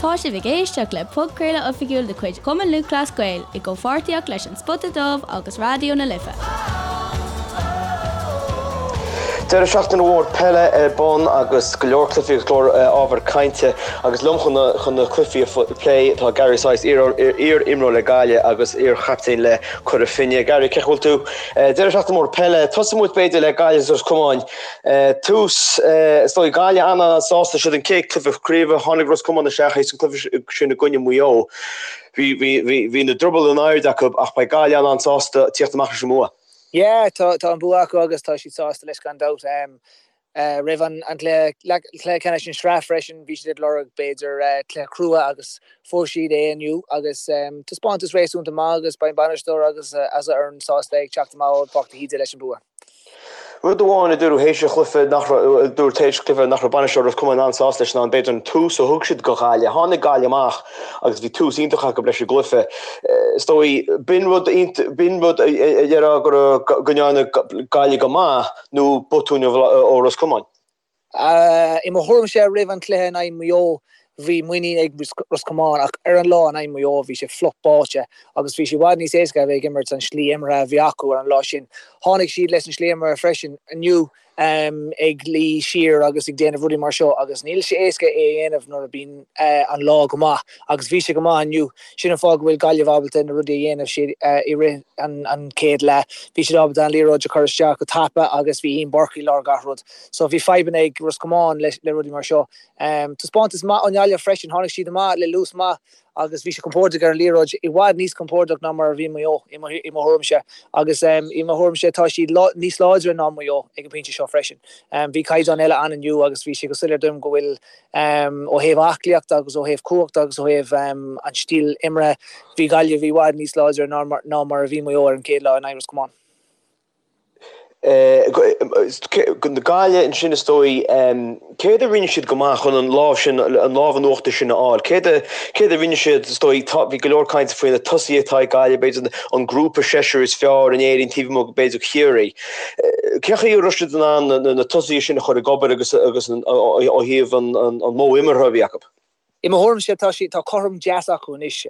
Tá sibh ag éisteacht le podchraoladh oifigiúil de chuid Chumann Lúthchleas Gael i gcomhpháirtíocht leis An Spota Dubh agus Raidió na Life. Deireadh seachtaine mhór peile ar bun agus go leor cluichí agus go leor ábhar cainte agus liom chun na cluichí a phlé tá Gary Sice, iar-imreoir le Gaillimh agus iar-chaptaen le Cora Finne. Gary, cén chaoi a bhfuil tú? Deireadh seachtaine mór peile. Tosóidh muid b'fhéidir le Gaillimh agus Ros Comáin. Tús, is dóigh, Gaillimh an-an-sásta, siad an chéad cluiche craoibhe, tháinig Ros Comáin isteach théis an cluiche sin i gcoinne Mhaigh Eo. Bhí, bhí, bhí, bhí na drubaill in airde acu ach beidh Gaillimh an-an-sásta tíocht amach leis an mbua. Yeah, tá, tá an bua acu agus tá siad sásta leis gan dabht. Roimh an cluiche, cluiche ceannais an sraith freisin, bhí siad ag lorg b'fhéidir cluiche crua agus fuair siad é inniu agus taispeántas réasúnta maith agus beidh an bainisteoir agus a fhoireann sásta ag teacht amach ó Pháirc de hÍde leis an bua. Rud amháin a dúradh théis an chluiche nach raibh, a dúradh théis an chluiche nach raibh bainisteoir Ros Comáin an-sásta leis ná b'fhéidir an tús a thug siad do Ghaillimh. Tháinig Gaillimh amach agus bhí tús iontach acu leis an gcluiche. Is dóigh, b'in rud, b'in rud a déarfá go raibh, go ndearna Gaillimh go maith nó botún ó Ros Comáin. I mo thuairimse roimh an chluiche in aghaidh Maigh Eo bhí muinín ag Ros Comáin ach ar an lá in aghaidh Maigh Eo bhí sé fliuch báite agus bhí sé i bhfad níos éasca a bheith ag imirt an slí imeartha a bhí acu ar an lá sin. Tháinig siad leis an slí imeartha freisin inniu ag luí siar agus ag déanamh rudaí mar seo agus níl sé éasca é a dhéanamh nuair a bíonn an lá go maith agus bhí sé go maith inniu. Sin an fáth go bhfuil Gaillimh ábalta na rudaí a dhéanamh siad i rith an chéad leath. Bhí siad ábalta an liathróid a chur isteach go tapa agus bhí Ian Burke i lár gach rud. So bhí fadhbanna ag Ros Comáin le rudaí mar seo. Taispeántas maith ó nGaillimh freisin. Tháinig siad amach le luas maith agus bhí siad compordach ar an liathróid, i bhfad níos compordach ná mar a bhí Maigh Eo i mo thuairimse. Agus i mo thuairimse tá siad níos láidre ná Maigh Eo ag an bpointe seo freisin. Bhí caighdeán eile ann inniu agus bhí sé go soiléir dom go bhfuil Ó thaobh aclaíochta agus ó thaobh cumhachta agus ó thaobh an stíl imeartha, bhí Gaillimh i bhfad níos láidre ná mar a bhí Maigh Eo ar an chéad lá in aghaidh Ros Comáin. Gaillimh ansin is dóigh, céard a rinne siad go maith chun an lámh sin, an lámh in uachtar sin a fháil? Céard a, céard a rinne siad is dóigh, tá, bhí go leor cainte faoi na tosaithe atá ag Gaillimh, b'fhéidir an grúpa seisir is fearr in Éirinn taobh amuigh b'fhéidir Chiarraí. Cén chaoi a raibh siad in ann na tosaithe sin a chur ag obair agus agus ó thaobh an modh imeartha a bhí acu? I mo thuairimse tá siad, tá cothrom deas acu anois.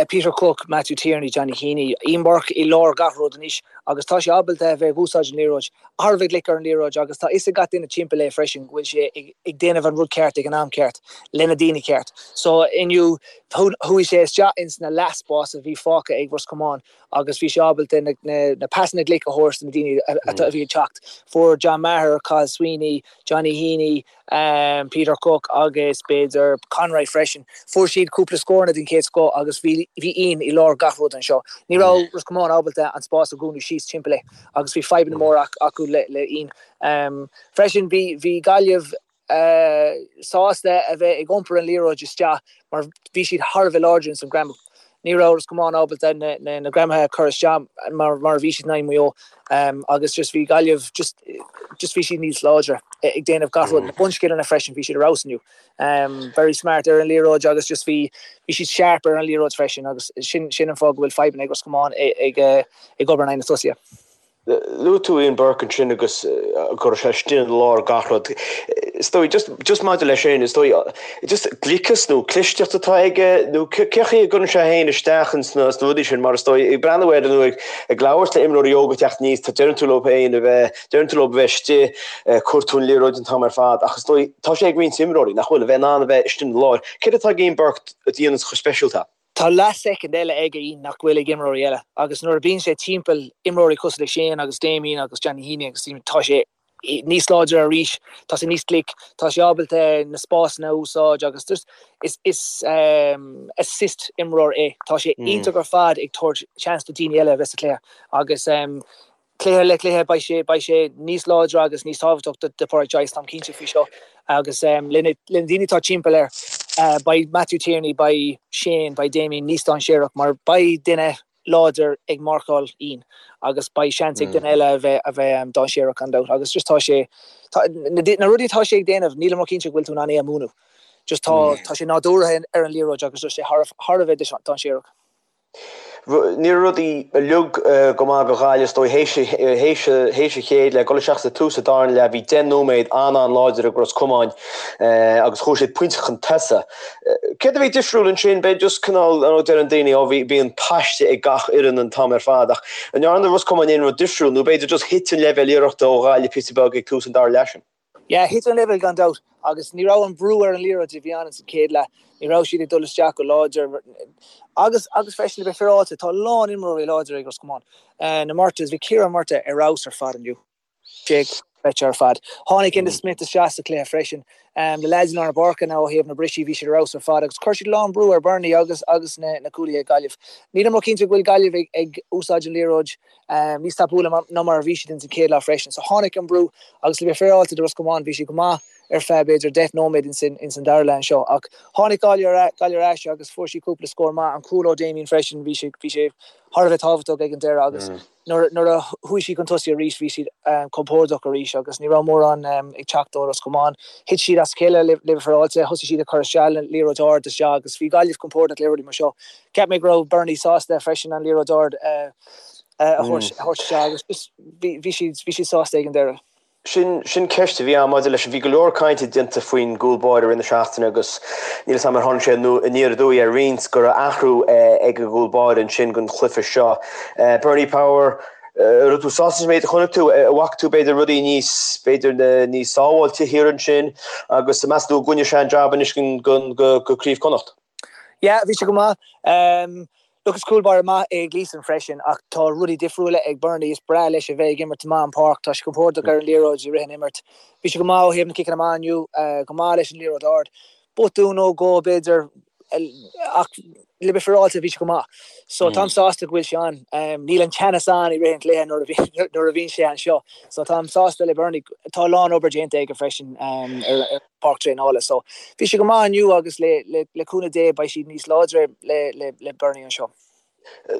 Peter Cooke, Matthew Tierney, Johnny Heaney, Ian Burke i lár gach rud anois agus tá sé ábalta a bheith ag úsáid an liathróid, thar a bheith glic ar an liathróid agus tá fhios ag gach duine timpeall é freisin go bhfuil sé ag déanamh an rud ceart ag an am ceart le na daoine ceart. So inniu chuaigh sé isteach ins na leathspás a bhí fágtha ag Ros Comáin agus bhí sé ábalta na pasanna glic a thabhairt do na daoine a bhí ag teacht. Fuair John Maher, Cathal Sweeney, Johnny Heaney, Peter Cooke agus b'fhéidir Conroy freisin. Fuair siad cúpla scóranna den chéad scoth agus bhí Ian i lár gach rud anseo. Ní raibh Ros Comáin ábalta an spás a dhúnadh síos timpeall é agus bhí fadhbanna móra acu le Ian. Freisin bhí Gaillimh sásta a bheith ag iompar an liathróid isteach mar bhí siad thar a bheith láidir ins an greamú. Ní raibh Ros Comáin ábalta na greamaithe a chur isteach mar a bhí siad in aghaidh Maigh Eo agus just bhí Gaillimh just just bhí siad níos láidre ag déanamh gach rud. Na bunscileanna freisin, bhí siad ar fheabhas inniu. Very smart ar an liathróid agus just bhí bhí siad sharp ar an liathróid freisin agus sin sin an fáth go bhfuil fadhbanna ag Ros Comáin ag ag obair in aghaidh na tosaithe. Luaigh tú Ian Burke ansin agus go raibh sé istigh i lár gach rud. Is dóigh, just, just maidir leis sin, is dóigh, just gliceas nó clisteacht atá aige nó cé chaoi a gcuireann sé féin isteach ins na, sna rudaí sin mar is dóigh, ag breathnú air nó ag, ag labhairt le imreoirí óga ag teacht aníos, tá, deireann tú leo féin a bheith, deireann tú leo a bheith istigh, cuir tú an liathróid an t-am ar fad ach is dóigh, tá sé ag roinnt imreoirí nach bhfuil, a bheith in ann a bheith istigh ina lár. Céard atá ag Ian Burke a dhéananns chomh speisialta? Tá leath-soicind eile ag Ian nach bhfuil ag imreoirí eile agus nuair a bíonn sé timpeall imreoirí cosúil le Shane agus Damien agus Johnny Heaney agus tá sé níos láidre arís, tá sé níos glic, tá sé ábalta na spásanna a úsáid agus just is is assist imreoir é. Tá sé iontach ar fad ag tabhairt seans do daoine eile a bheith sa chluiche agus Cluiche le cluiche beidh sé beidh sé níos láidre agus níos tábhachtach do do Pádraic Joyce, táim cinnte faoi seo. Agus le na le na daoine atá timpeall air, beidh Matthew Tierney, beidh Shane, beidh Damien níos dainséarach mar beidh duine láidir ag marcáil Ian agus beidh seans ag duine eile a bheith a bheith dainséarach gan dabht. Agus just tá sé tá na na rudaí atá sé ag déanamh nílim róchinnte go bhfuil tú in ann é a mhúineadh. Just tá tá sé nádúrtha ar an liathróid agus tá sé thar thar a bheith dainséarach. Ní raibh rudaí uilig go maith do Ghaillimh is dóigh théis an chéad leath, dul isteach sa tús an darna leath, bhí 10 nóiméad an-an-láidir ag Ros Comáin agus chuaigh siad pointe chun tosaigh. Céard a bhí difriúil ansin? B'fhéidir just cineál, ar ndóigh deireann daoine, ó bhí, bíonn paiste ag gach fhoireann an t-am ar fad ach an ndearna Ros Comáin aon rud difriúil nó b'fhéidir just thit an leibhéal iarrachta ó Ghaillimh píosa beag ag tús an dara leath sin? Yeah, thit an leibhéal gan dabht agus ní raibh an brú ar an liathróid a bhí ann sa chéad leath. Ní raibh siad ag dul isteach go láidir agus agus freisin le bheith féaráilte, tá a lán imreoirí láidir ag Ros Comáin. Na Murtaghs, bhí Ciarán Murtagh ar fheabhas ar fad inniu. Sé dochreidte ar fad. Tháinig Enda Smith isteach sa chluiche freisin. Na leaids i lár na páirce now ó thaobh na brisí, bhí siad ar fheabhas ar fad agus chuir siad a lán brú ar Bernie agus agus na na cúlaithe ag Gaillimh. Nílim ró-chinnte go bhfuil Gaillimh ag ag úsáid an liathróid níos tapúla ná mar a bhí siad ins an chéad leath freisin. So tháinig an brú agus le bheith féaráilte do Ros Comáin bhí siad go maith ar feadh b'fhéidir 10 nóiméad ins an dara leath anseo. Ach tháinig Gaillimh ar ais agus fuair siad cúpla scór maith. An cúl ó Damien freisin, bhí sé bhí sé thar a bheith tábhachtach ag an deireadh agus nuair nuair a chuaigh siad chun tosaigh arís bhí siad compordach arís agus ní raibh mórán ag teacht ó Ros Comáin. Thit siad as a chéile le bheith féaráilte, thosaigh siad ag cur isteach liathróid ard isteach agus bhí Gaillimh compordach le rudaí mar seo. Cheap mé go raibh Bernie sásta freisin an liathróid ard a thabhairt isteach agus just bhí siad bhí siad sásta ag an deireadh. Sin sin ceist a bhí ann maidir leis an bhí go leor cainte déanta faoin gcúl báire i rith na seachtaine agus níl 'fhios a'm ar tháinig sé aniar aduaidh ar roinnt go raibh athrú ag an gcúl báire ansin don chluiche seo. Bernie Power, raibh tú sásta sa méid a chonaic tú? An bhfaca tú b'fhéidir rudaí níos b'fhéidir níos sábháilte thiar ansin agus meas tú an gcoinneoidh sé an jab anois go Craobh Chonnacht? Yeah, bhí sé go maith. Look, is cúl báire maith é Gleeson freisin ach tá rudaí difriúla ag Bernie. Is breá leis a bheith ag imirt amach an páirc. Tá sé compordach ar an liathróid i rith an imirt. Bhí sé go maith ó thaobh na ciceanna amach inniu, go maith leis an liathróid ard. Botún nó dhó b'fhéidir ach le bheith féaráilte bhí sé go maith. So táim sásta go bhfuil sé ann. Níl an teannas ann i rith an chluiche nuair a bhíonn sé anseo. So táim sásta le Bernie. Tá a lán obair déanta aige freisin ar páirc traenála. So bhí sé go maith inniu agus le le cúnamh Dé beidh siad níos láidre le le le Bernie anseo.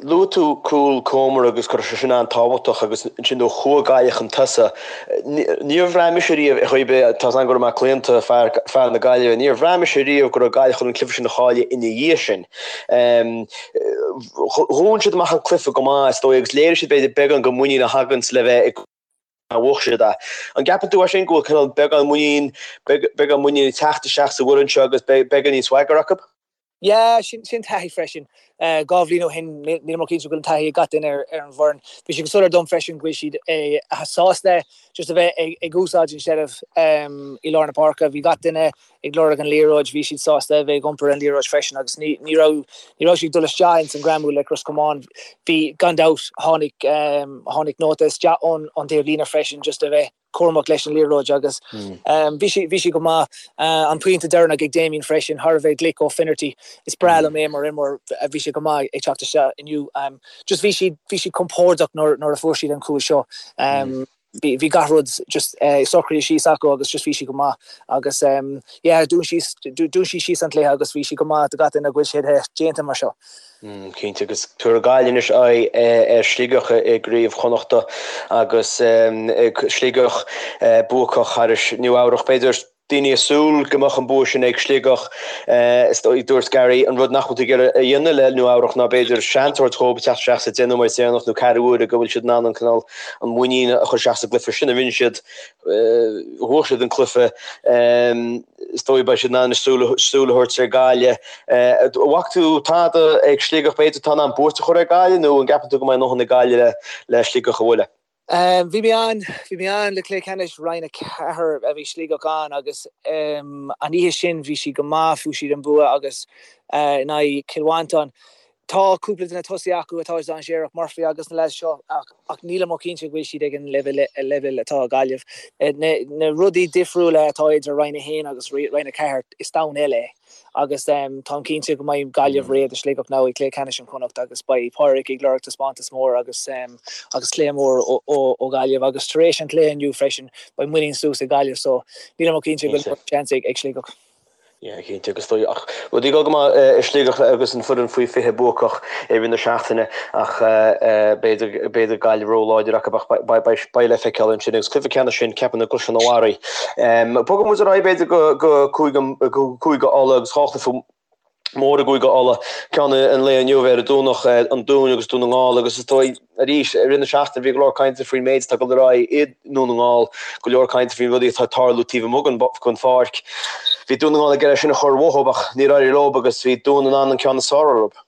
Luaigh tú cúl Comer agus go raibh sé sin an-tábhachtach agus ansin nuair a chuaigh Gaillimh chun tosaigh, níor bhraith mise riamh ar chaoi ar bith, tá 's agam go raibh mé claonta fear fear na Gaillimhe, níor bhraith mise riamh go raibh Gaillimh chun an cluiche sin a chailleadh ina dhiaidh sin. Dhún siad amach an cluiche go maith is dóigh agus léirigh siad b'fhéidir beagán den mhuinín a thaganns le bheith ag a bhuaigh siad é. An gceapann tú é sin go bhfuil cineál beagán muinín, beagán muinín ag teacht isteach sa bhfoireann seo agus beagán níos swagger acu? Yeah, sin sin taithí freisin. 2 bhliain ó shin, nílim ró-chinnte go bhfuil an taithí ag gach duine ar ar an bhfoireann. Bhí sé go soiléir dom freisin go bhfuil siad sásta just a bheith ag ag úsáid an seilbh i lár na páirce. Bhí gach duine ag lorg an liathróid, bhí siad sásta a bheith ag iompar an liathróid freisin agus ní ní raibh ní raibh siad ag dul isteach ins an greamú le Ros Comáin. Bhí, gan dabht, tháinig tháinig nóta isteach ón ón taobh líne freisin just a bheith cúramach leis an liathróid agus bhí sí bhí sí go maith. An pointe deireanach ag Damien freisin, thar a bheith glic ó Finnerty. Is breá liom é mar imreoir, bhí sé go maith ag teacht isteach inniu. Just bhí siad bhí siad compordach nuair nuair a fuair siad an cúl seo. Bhí gach rud just socraithe síos acu agus just bhí siad go maith agus yeah dún síos dún siad síos an cluiche agus bhí siad go maith do gach duine go bhfuil siad déanta mar seo. Cinnte agus tabharfaidh Gaillimh anois aghaidh ar Shligeach i gCraobh Chonnachta agus Sligeach buacach thairis Nua Eabhrach b'fhéidir. Daoine ag súil go mbeadh an bua sin ag Sligeach. Is dóigh, dúirt Gary, an rud nach bhfuil tú ag iarraidh a dhéanamh le Nua Eabhrach ná b'fhéidir seans a thabhairt dhóibh teacht isteach sa 10 nóiméad deireanach nó ceathrú uaire go bhfuil siad in ann an cineál an muinín a chur isteach sa gcluiche sin a rinne siad. Bhuaigh siad an cluiche. Is dóigh beidh siad in ann súil a thabhairt ar Gaillimh. An bhfaca tú tada ag Sligeach b'fhéidir atá in ann buairt a chur ar Gaillimh nó an gceapann tú go mbeidh a ndóthain ag Gaillimh le Sligeach a bhualadh? Bhí mé ann, bhí mé ann le cluiche ceannais Roinn 4 a bhí Sligeach ann agus an oíche sin bhí siad go maith, fuair siad an bua agus in aghaidh Cill Mhantáin. Tá cúpla de na tosaithe acu atá dainséarach, Murphy agus na leaids seo ach ach nílim ró-chinnte go bhfuil siad ag an leibhéal atá ag Gaillimh. Na rudaí difriúla atá idir Roinn 1 agus Roinn 4, is domhan eile é. Agus táim cinnte go mbeidh Gaillimh réidh do Sligeach now i gcluiche ceannais an Chonnacht agus beidh Pádraig ag lorg taispeántas mór agus agus cluiche mór ó Ghaillimh agus tar éis an chluiche inniu freisin beidh muinín suas ag Gaillimh so nílim ró-chinnte go bhfuil seans ag Sligeach. Yeah, cinnte agus dóigh ach rudaí ag dul go maith i Sligeach agus an foireann faoi 20 buacach i rith na seachtaine ach b'fhéidir b'fhéidir Gaillimh ró-láidir acu ach beidh le feiceáil ansin agus cluiche ceannais sin ceapaim i gCaisleán an Bharraigh. Bogfaidh muid ar aghaidh b'fhéidir go go Cúige Uladh agus 2 chluiche. mór i gCúige Uladh, ceann an lae inniu ar an Domhnach, an Dún agus Dún na nGall agus is dóigh arís i rith na seachtaine bhí go leor cainte faoin méid atá ag dul ar aghaidh i nDún na nGall, go leor cainte faoin rudaí atá ag tarlú taobh amuigh den pháirc. Bhí Dún na nGall ag iarraidh sin a chur uathu ach níor éirigh leo agus bhí Dún in ann an ceann is fearr orthu.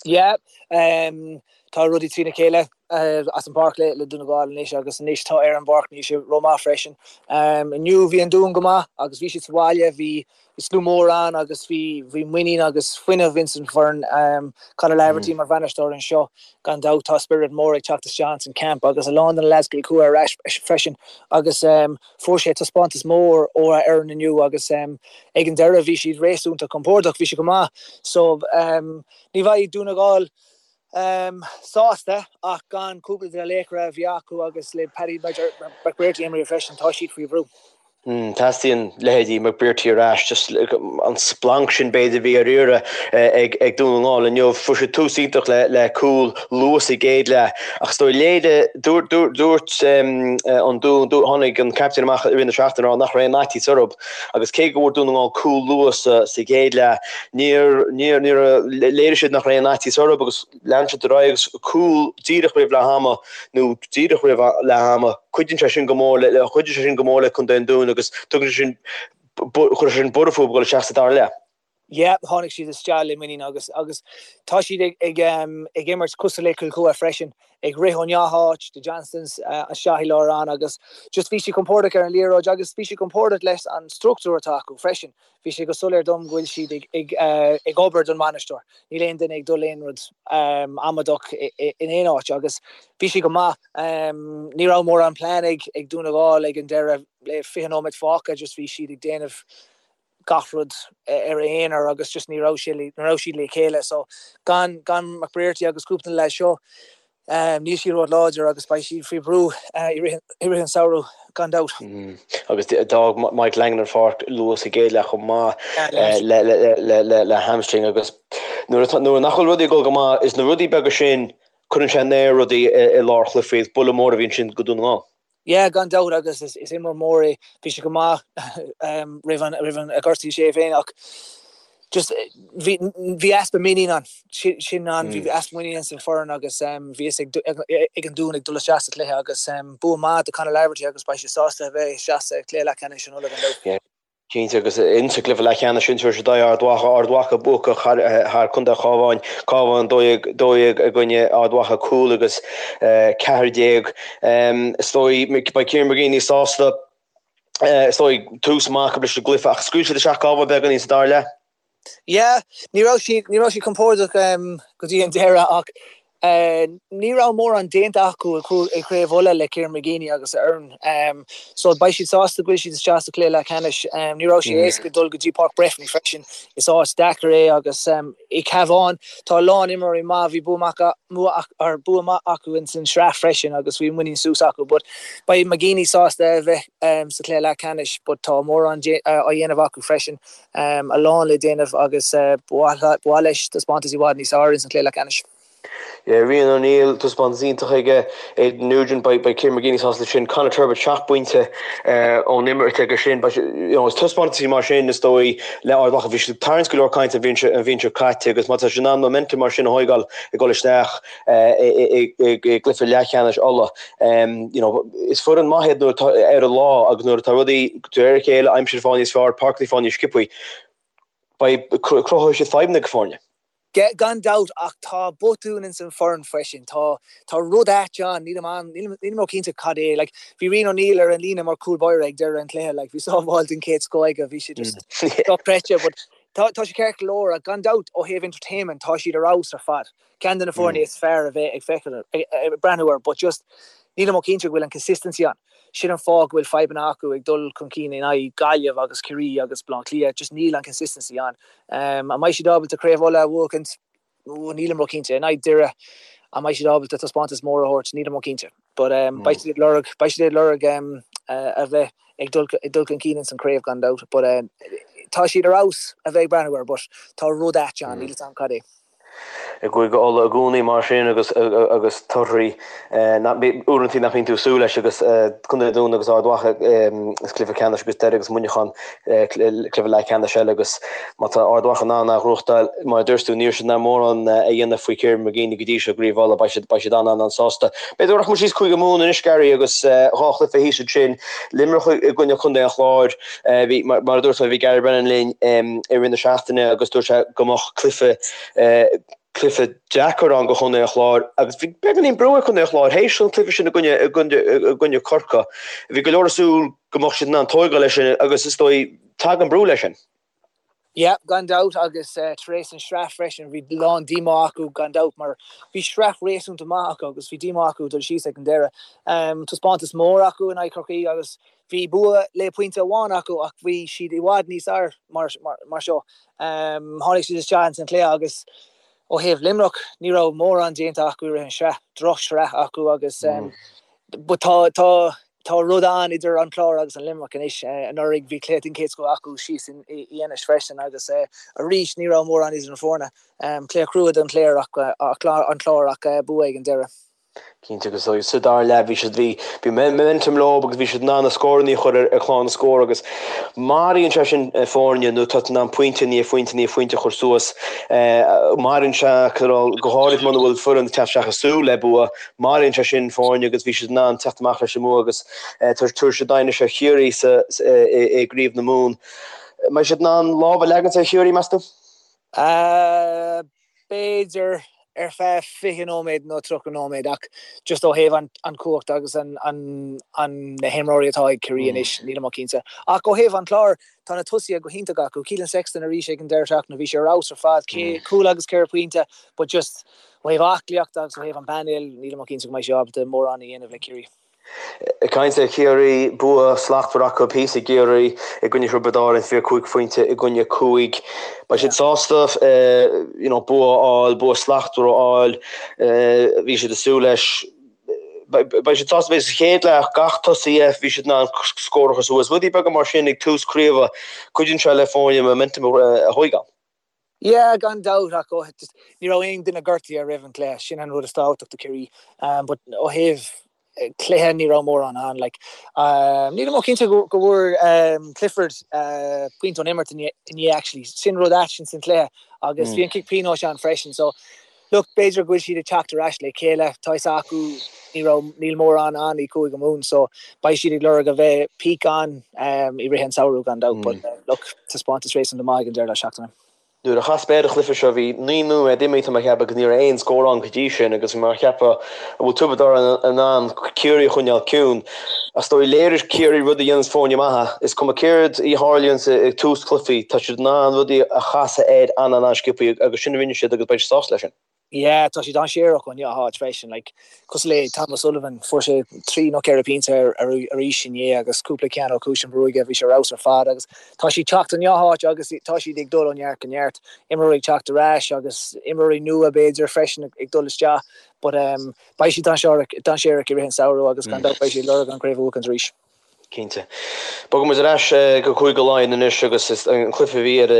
Yeah, tá rudaí trína chéile as an bpáirc le Dún na nGall anois agus anois tá ar an bpáirc níl sé rómhaith freisin. Inniu bhí an Dún go maith agus bhí siad sa bhaile, bhí Bhí slua mór ann agus bhí bhí muinín agus fuinneamh ins an bhfoireann. Conor Laverty mar bhainisteoir anseo, gan dabht tá spiorad mór ag teacht isteach ins an camp agus a lán de na lads Cill Chua ar ais freisin agus fuair sé taispeántas mór ó a fhoireann inniu agus ag an deireadh bhí siad réasúnta compordach, bhí siad go maith. So ní bheidh Dún na nGall sásta ach gan cúpla de na laochra a bhí acu agus le Paddy McBrearty imithe freisin tá siad faoi bhrú. Teastaíonn leithéidí McBrearty ar ais, just an splanc sin b'fhéidir a bhí ar iarraidh ag Dún na nGall inniu. Fuair siad tús iontach le cúl luath sa gcéad leath ach is dóigh léirigh, dúirt an Dún, tháinig an captaen amach i rith na seachtaine ag rá nach raibh aon fhaitíos orthu agus cé go bhfuair Dún na nGall cúl luath sa gcéad leath, níor, níor, níor, léirigh siad nach raibh aon fhaitíos orthu agus Lean siad ar aghaidh agus cúl díreach roimh leath ama nó díreach roimh leath ama, cuidíonn sé sin go mór le, chuidigh sé sin go mór le Contae an Dúin agus tugann sé sin, chuir sé sin borradh fúthu ag dul isteach sa dara leath. Yeah, tháinig siad isteach le muinín agus agus tá siad ag ag ag imirt cosúil le Cill Chua freisin, ag rith ó gach áit, the Johnstons isteach i lár ann agus just bhí siad compordach ar an liathróid agus bhí siad compordach leis an struchtúr atá acu freisin. Bhí sé go soiléir dom go bhfuil siad ag obair don bhainisteoir. Níl aon duine ag dul aon rud amaideach in aon áit agus bhí sé go maith. Ní raibh mórán plean ag Dún na nGall ag an deireadh le 20 nóiméad fágtha, just bhí siad ag déanamh gach rud ar a aonar agus just ní raibh ní raibh siad le chéile. So gan gan McBrearty agus cúpla de na leaids seo, Níl siad róláidir agus beidh siad faoi bhrú i rith an samhradh gan dabht. Agus d'fhág Mike Langan an pháirc luath sa gcéad leath chomh maith le hamstring agus nuair nach bhfuil rudaí ag dul go maith, is na rudaí beaga sin, cuireann sé in aer rudaí i lár chluichí. Is buille mór a bhí ansin do Dhún na nGall. Yeah, gan dabht agus is imreoir mór é. Bhí sé go maith roimh an roimh an gortaigh sé féin ach just bhí bhí easpa muinín ann. Sin an bhí easpa muinín san foireann agus bhí fhios ag ag an Dún ag dul isteach sa chluiche agus bua maith do Conor Laverty agus beidh sé sásta a bheith isteach sa chluiche leathcheannais in Uladh gan dabht. Cinnte, agus insa gcluiche leathcheannais sin tabharfaidh siad aghaidh Ard Mhacha, Ard Mhacha buacach thar Contae an Chabháin, Cabhán 12, 12 i gcoinne Ard Mhacha 5 agus 14. Is dóigh, beidh Kieran McGeeney sásta, is dóigh, tús maith acu leis an gcluiche ach scaoil siad isteach Cabhán beagáinín sa dara leath. Yeah, ní raibh siad, ní raibh siad compordach go dtí an deireadh ach ní raibh mórán déanta acu i gCraobh Uladh le Kieran McGeeney agus a fhoireann. So beidh siad sásta go bhfuil siad isteach sa chluiche leathcheannais. Ní raibh sé éasca dul go dtí Páirc Breffni freisin. Is áit deacair é agus i Cabhán tá a lán imreoirí maith, bhí bua maith bua maith acu ins an sraith freisin agus bhí muinín suas acu. But beidh McGeeney sásta a bheith sa chluiche leathcheannais but tá mórán á dhéanamh acu freisin. a lán le déanamh agus ba mhaith leis taispeántas i bhfad níos fearr ins an chluiche leathcheannais. Rian O'Neill, taispeántas iontach aige, Aidan Nugent, beidh Kieran McGeeney sásta leis sin, Conor Turbitt, 7 bpointe ón imirt aige sin. Is taispeántaisí mar sin is dóigh le Ard Mhacha. Bhí siad ag tarraingt go leor cainte an bhliain seo caite agus má tá siad in ann momentum mar sin a thóigeáil ag dul isteach i gcluiche leathcheannais Uladh, you know, is foireann maith iad nuair atá ar a lá agus nuair atá rudaí de réir a chéile, aimsir ag fáil níos fearr, páirceanna ag fáil níos sciobthaí, beidh, cruthóidh siad fadhbanna do foirne. Gan dabht, ach tá botún ins an foireann freisin. Tá, tá rud ait ann, nílim an, nílim, nílim ró-chinnte cad é. Like, bhí Rian O'Neill ar an líne mar cúl báire ag deireadh an chluiche, like, bhí sábháil den chéad scoth aige, bhí sé just dochreidte, but tá, tá sé ceart go leor, ach gan dabht, ó thaobh entertainment, tá siad ar fheabhas ar fad. Ceann de na foirne is fearr a bheith ag feiceáil, ag breathnú air, but just nílim ró-chinnte go bhfuil an consistency ann. Sin an fáth go bhfuil fadhbanna acu ag dul chun cinn in aghaidh Gaillimh agus Ciarraí agus Baile Átha Cliath, just níl an consistency ann. An mbeidh siad ábalta Craobh Uladh a bhuachaint? Nílim ró-chinnte. In aghaidh Doire, an mbeidh siad ábalta taispeántas mór a thabhairt? Nílim ró-chinnte. But beidh siad ag lorg, beidh siad ag lorg a bheith ag dul, ag dul chun cinn ins an chraobh gan dabht. But tá siad ar fheabhas a bheith ag breathnú air, but tá rud ait ann, níl fhios a'm cad é. I gCúige Uladh i gcónaí mar sin agus agus torthaí uaireanta nach mbíonn tú ag súil leis agus Contae an Dúin agus Ard Mhacha is cluiche ceannais agus Doire agus Muineachán cluiche leathcheannais eile agus má tá Ard Mhacha in ann a ghnóthachtáil mar a dúirt tú ní raibh siad in ann mórán a dhéanamh faoi Kieran McGeeney go dtí seo i gCraobh Uladh beidh siad beidh siad an-an-an-sásta. B'fhéidir go rachaidh muid síos Cúige Mumhan anois Gary agus dhá chluiche thíos ansin Luimneach i gcoinne Chontae an Chláir. Bhí, mar a dúirt mé, bhí Gary Brennan linn i rith na seachtaine agus dúirt sé go mbeadh cluiche, cluiche deacair ann do Chontae an Chláir agus bhí beagáinín brú ar Chontae an Chláir théis an cluiche sin i gcoinne, i gcoinne, i gcoinne Corcaigh. Bhí go leor ag súil go mbeadh siad in ann tóigeáil leis sin agus is dóigh tagann brú leis sin. Yeah, gan dabht, agus tar éis an sraith freisin, bhí lán díomá acu gan dabht mar bhí sraith réasúnta maith acu agus bhí díomá acu dul síos ag an deireadh. Taispeántas mór acu in aghaidh Chorcaí agus bhí bua le pointe amháin acu ach bhí siad i bhfad níos fhearr mar mar seo. Tháinig siad isteach ins an chluiche agus ó thaobh Luimneach ní raibh mórán déanta acu i rith an sraith, droch-shraith acu agus but tá tá Tá rud ann idir an Clár agus an Luimneach anois. Anuraidh bhí cluiche den chéad scoth acu síos in Inis freisin agus arís ní raibh mórán idir na foirne. Cluiche crua don Chléir ach an Clár ach bua ag an deireadh. Cinnte agus sa dara leath bhí siad bhí bhí momentum leo agus bhí siad in ann na scóranna a chur ar chlár na scór agus maraíonn sé sin foirne nuair atá tú in ann pointe i ndiaidh phointe i ndiaidh phointe a chur suas. Maraíonn sé go háirid muna bhfuil foireann ag teacht isteach ag súil le bua. Maraíonn sé sin foirne agus bhí siad in ann teacht amach leis an mbua agus tabharfaidh siad aghaidh anois ar Chiarraí sa i gCraobh na Mumhan. Mbeidh siad in ann lámh a leagaint ar Chiarraí, meas tú? B'fhéidir ar feadh 20 nóiméad nó 30 nóiméad ach just ó thaobh an chumhacht agus an na himreoirí atá ag Ciarraí anois, nílim cinnte. Ach ó thaobh an Chláir, tá na tosaithe go hiontach acu. Keelan Sexton arís ag an deireadh seachtaine, bhí sé ar fheabhas ar fad, cúl agus ceithre pointe but just Ó thaobh aclaíochta agus ó thaobh an painéil, nílim cinnte go mbeidh sé ábalta mórán a dhéanamh le Ciarraí. Ag caint ar Chiarraí, bua slachtmhar acu thíos i gCiarraí i gcoinne Thiobraid Árann, 25 phointe i gcoinne 5. Beidh siad sásta you know, bua a fháil, bua slachtmhar a fháil. Bhí siad ag súil leis. Beidh siad sásta bheith sa chéad leath, gach tosaí, bhí siad in ann scór a chur suas. Rudaí beaga mar sin ag tús craoibhe, cuidíonn sé le foirne momentum a thóigeáil. Yeah, gan dabht, ach ó just ní raibh aon duine gortaithe roimh an gcluiche, sin an rud is tábhachtach do Chiarraí. But ó thaobh cluiche ní raibh mórán ann. Like, nílim cinnte go go bhfuair Clifford pointe ón imirt inné actually. Sin rud ait ins an chluiche agus bhí an cic pionóis ann freisin. So look, b'fhéidir go bhfuil siad ag teacht ar ais le chéile. Tá fhios acu ní raibh níl mórán ann i Cúige Mumhan so beidh siad ag lorg a bheith peak ann i rith an samhradh gan dabht. But look, taispeántas réasúnta maith ag an deireadh seachtaine. Nuair a chas mé ar an chluiche seo bhí 9 nóiméad imithe tá mé ag ceapadh agus ní raibh aon scór ann go dtí sin agus bhí mé ag ceapadh an bhfuil Tiobraid Árann in ann Ciarraí a choinneáil ciúin. Is dóigh léirigh Ciarraí rud a dhéananns foirne maithe. Is cuma céard a tharlaíonns ag tús cluichí tá siad in ann rudaí a chasadh air an-an-sciobtha agus sin a rinne siad agus beidh siad sásta leis sin. Yeah, tá siad dainséarach ó neamh freisin, like, cosúil le Tom O'Sullivan, fuair sé 3 nó 4 pointe arís inné agus cúpla ceann ó chúis an bhruaighe, bhí sé ar fheabhas ar fad agus tá siad teacht ó neamh agus tá siad ag dul ó neart go neart, imreoirí ag teacht ar ais agus imreoirí nua b'fhéidir freisin ag dul isteach but um, beidh siad dainséarach dainséarach i rith an samhradh agus gan dabht beidh siad ag lorg an chraobh a bhuachaint arís. Cinnte. Bogfaidh muid ar ais go Cúige Laighean anois agus an cluiche a bhí ar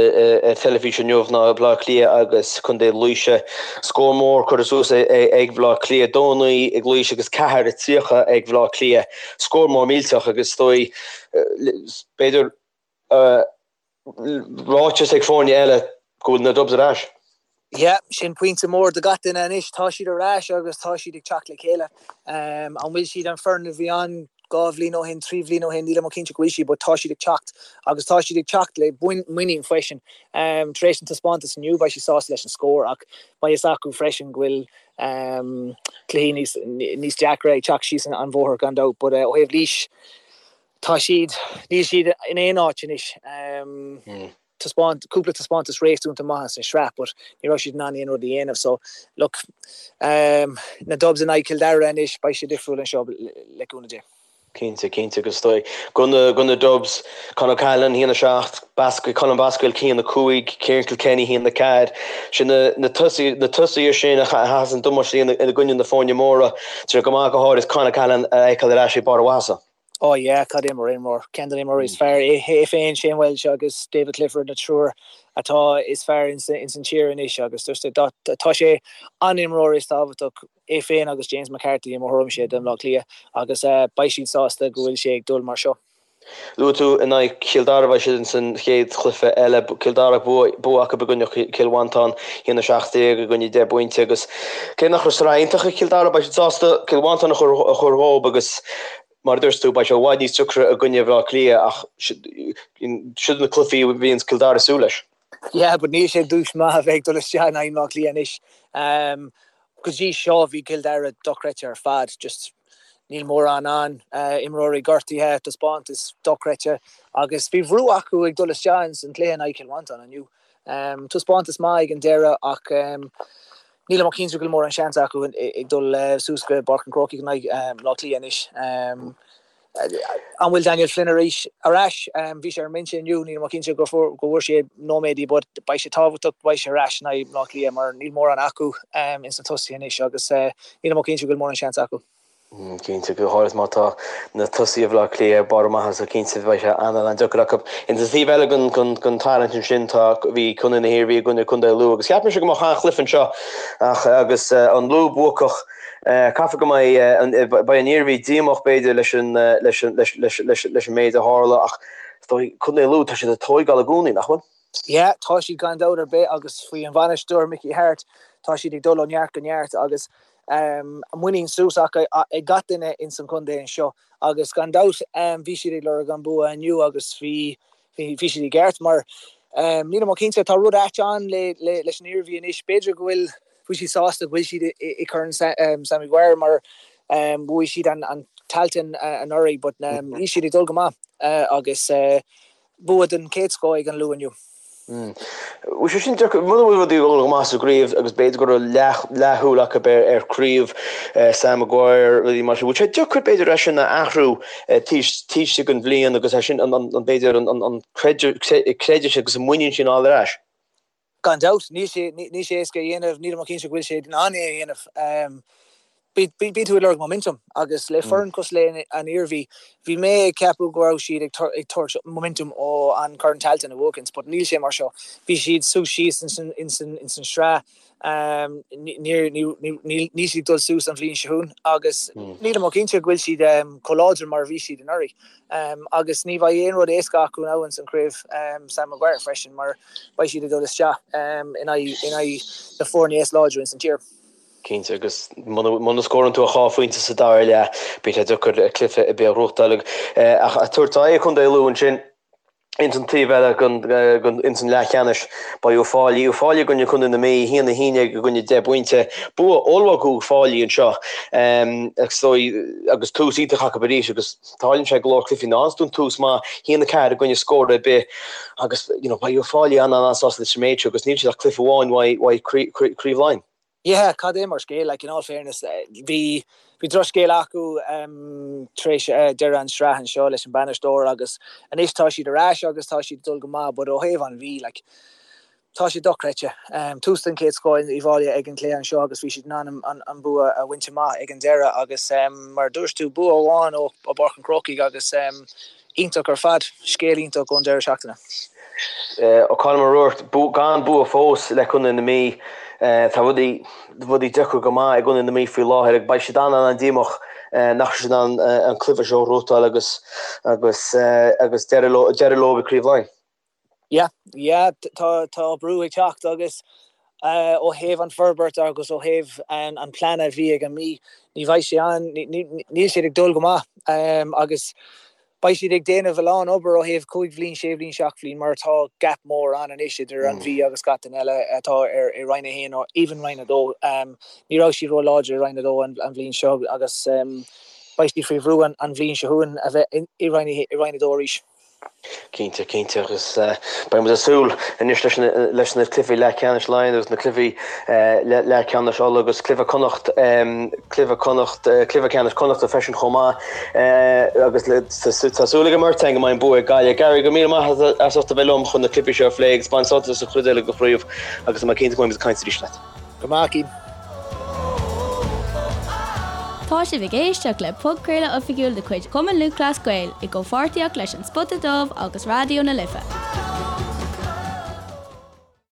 ar teilifís inniu ná Baile Átha Cliath agus Contae Laoise. Scór mór curtha suas ag Baile Átha Cliath, 2-9 ag Laois agus 4-30 ag Baile Átha Cliath. Scór mór millteach agus is dóigh b'fhéidir ráiteas ag foirne eile go bhfuil na Dubs ar ais. Yeah, sin pointe mór do gach duine anois. Tá siad ar ais agus tá siad ag teacht le chéile. An bhfuil siad an foireann a bhí ann dhá bhliain ó shin, trí bhliain ó shin, nílim cinnte go bhfuil siad, but tá siad ag teacht agus tá siad ag teacht le muinín freisin. Tar éis an taispeántas inniu, beidh siad sásta leis an scór ach beidh fhios acu freisin go bhfuil cluichí níos níos deacra ag teacht síos an bhóthar gan dabht. But ó thaobh Laois, Tá siad, níl siad in aon áit anois. Taispeáint, cúpla taispeántas réasúnta maith sa sraith but ní raibh siad in ann aon rud a dhéanamh so look, na Dubs in aghaidh Cill Dara anois, beidh sé difriúil anseo le cúnamh Dé. Cinnte, cinnte agus is dóigh do na, do na Dubs, Con O'Callaghan, 1-7, Basquel, Colm Basquel, 1-5, Ciarán Kilkenny, 1-4. Sin na, na tosaithe, na tosaithe sin a chaitheas an damáiste i gcoinne na foirne móra. Tá sé go maith go háirid Con O'Callaghan a fheiceáil ar ais ag barr a mhaitheasa. Oh yeah, cad é mar imreoir. Ceann de na imreoirí is fearr. É féin, Shane Walsh agus David Clifford na triúr atá is fearr ins an tír anois agus just tá sé an imreoir is tábhachtach, é féin agus James McCarthy i mo thuairimse do Bhaile Átha Cliath agus beidh siad sásta go bhfuil sé ag dul mar seo. Luaigh tú in aghaidh Chill Dara, beidh siad ins an chéad chluiche eile. Cill Dara, bua acu i gcoinne Chill Mhantáin, 1-17 i gcoinne 10 bpointe agus cé nach raibh sraith iontach ag Cill Dara, beidh siad sásta Cill Mhantáin a chur dhóibh agus mar a dúirt tú, beidh sé i bhfad níos deacra i gcoinne Bhaile Átha Cliath ach siod na cluichí a bhíonns Cill Dara ag súil leis. Yeah, but níl sé dúis maith a bheith ag dul isteach in aghaidh Bhaile Átha Cliath anois. Go dtí seo bhí Cill Dara dochreidte ar fad, just níl mórán ann, imreoirí gortaithe, taispeántas dochreidte agus bhí brú acu ag dul isteach ins an cluiche in aghaidh Chill Mhantáin inniu. Taispeántas maith ag an deireadh ach nílim ach cinnte go bhfuil mórán seans acu ag dul suas go Páirc an Chrócaigh in aghaidh Bhaile Átha Cliath anois. An bhfuil Daniel Flynn arís ar ais? Bhí sé ar an mbinse inniu, nílim ach cinnte go bhfuair sé nóiméadaí but beidh sé tábhachtach go mbeidh sé ar ais in aghaidh Bhaile Átha Cliath mar níl mórán acu ins na tosaithe anois agus nílim ach cinnte go bhfuil mórán seans acu. Cinnte, go háirithe má tá na tosaithe Bhaile Átha Cliath ar barr a maitheasa, cinnte beidh sé an-an-deacair acu. Ins an taobh eile den tarraingt ansin tá, bhí Contae na hIarmhí i gcoinne Contae Lú agus cheap mise go mbeadh an-chluiche anseo ach agus an Lú buacach, Caithfidh go mbeidh beidh an Iarmhí díomách b'fhéidir leis an leis an leis leis leis leis an méid a tharla ach is dóigh Contae Lú tá siad ag tóigeáil i gcónaí, nach bhfuil? Yeah, tá siad gan dabht ar bith agus faoi an bhainisteoir Mickey Harte tá siad ag dul ó neart go neart agus muinín suas acu ag gach duine ins an chontae anseo agus gan dabht bhí siad ag lorg an bua inniu agus bhí bhí siad i gceart mar nílim ach cinnte tá rud ait ann le leis an Iarmhí anois b'fhéidir go bhfuil bhfuil siad sásta go bhfuil siad i gCorn Sam Maguire mar bhuaigh siad an Tailteann anuraidh but níl siad ag dul go maith agus bua den chéad scoth ag an Lú inniu. Bhfuil sé sin deacair, muna bhfuil rudaí ag dul go maith sa gcraobh agus b'fhéidir go raibh leathshúil acu ar chraobh Sam Maguire, rudaí mar sin, bhfuil sé deacair b'fhéidir é sin a athrú taobh istigh den bhliain agus é sin b'fhéidir an creideamh agus an muinín sin a fháil ar ais? Gan dabht, níl sé, níl sé éasca a dhéanamh, nílim ach cinnte go bhfuil sé in ann é a dhéanamh. Bíonn tú ag lorg momentum agus le foireann cosúil le an Iarmhí, bhí mé ag ceapadh go raibh siad ag tabhairt momentum ó an Corn Tailteann a bhuachaint but níl sé mar seo. Bhí siad suas síos ins an sraith, níl siad ag dul suas an bhliain seo chugainn agus nílim ach cinnte go bhfuil siad chomh láidir mar a bhí siad anuraidh. Agus ní bheidh aon rud éasca acu now ins an chraobh Sam Maguire freisin mar beidh siad ag dul isteach in aghaidh na foirne is láidre ins an tír. Cinnte, agus muna scórann tú ach 2 phointe sa dara leath, bíonn sé deacair cluiche ar bith a ghnóthachtáil. Ach ag tabhairt aghaidh Chontae Lú ansin, ins an taobh eile den ins an leathcheannais, beidh Uíbh Fhailí, Uíbh Fhailí i gcoinne Chontae na Mí, 1, 11 i gcoinne 10 bpointe. Bua ollmhór ag Uíbh Fhailí anseo agus agus tús iontach acu arís agus tarlaíonn sé go leor cluichí ná fhaigheanns tú an tús maith, 1, 4 i gcoinne scór ar bith agus you know beidh Uíbh Fhailí an-an-sásta leis an méid seo agus níl siad ach cluiche amháin uaidh Craobh Laighean. Yeah, cad é mar scéal, like, in all fairness, bhí, bhí drochscéal acu tar éis deireadh an sraith anseo leis an bainisteoir agus anois tá siad ar ais agus tá siad ag dul go maith but ó thaobh an Mhí, like, tá sé dochreidte. Tús den chéad scoth in Uíbh Fhailí ag an cluiche anseo agus bhí siad in ann an bua a bhaint amach ag an deireadh agus mar a dúirt tú, bua amháin ó Pháirc an Chrócaigh agus iontach ar fad, scéal iontach ón deireadh seachtaine. Colm O'Rourke, gan bua fós le Contae na Mí. Tá rudaí rudaí deacair go maith i gContae na Mí faoi láthair agus beidh siad an-an-díomách nach raibh siad in ann an cluiche seo a ghnóthachtáil agus agus agus deireadh leo deireadh leo i gCraobh Laighean. Yeah, yeah, tá tá brú ag teacht agus ó thaobh an forbairt agus ó thaobh an plean a bhí ag an Mí, ní bheidh sé ann, níl siad ag dul go maith agus Beidh siad ag déanamh a lán obair ó thaobh 5 bhliain, 6 bhliain, 7 bhliain mar tá gap mór ann anois idir an Mhí agus gach duine eile atá ar i Roinn 1 nó even Roinn 2. Ní raibh siad ró-láidir i Roinn 2 an bhliain seo agus beidh siad faoi bhrú an bhliain seo chugainn a bheith i Roinn 2 arís. Cinnte, cinnte agus beidh muid ag súil anois leis na leis na cluichí leathcheannais Laighean agus na cluichí leathcheannais Uladh agus cluiche Connacht cluiche Connacht, cluiche ceannais Connachta freisin chomh maith agus tá súil ag an mbeirt againn go mbeidh an bua ag Gaillimh. Gary, go raibh míle maith agat as ucht a bheith liom chun na cluichí seo a phlé agus bain sult as an chuid eile den chraobh agus tá mé cinnte go mbeidh muid ag caint arís leat. Go maith, Cian. Tá sibh ag éisteacht le podchraoladh oifigiúil de chuid Chumann Lúthchleas Gael i gcomhpháirtíocht leis An Spota Dubh agus Raidió na Life.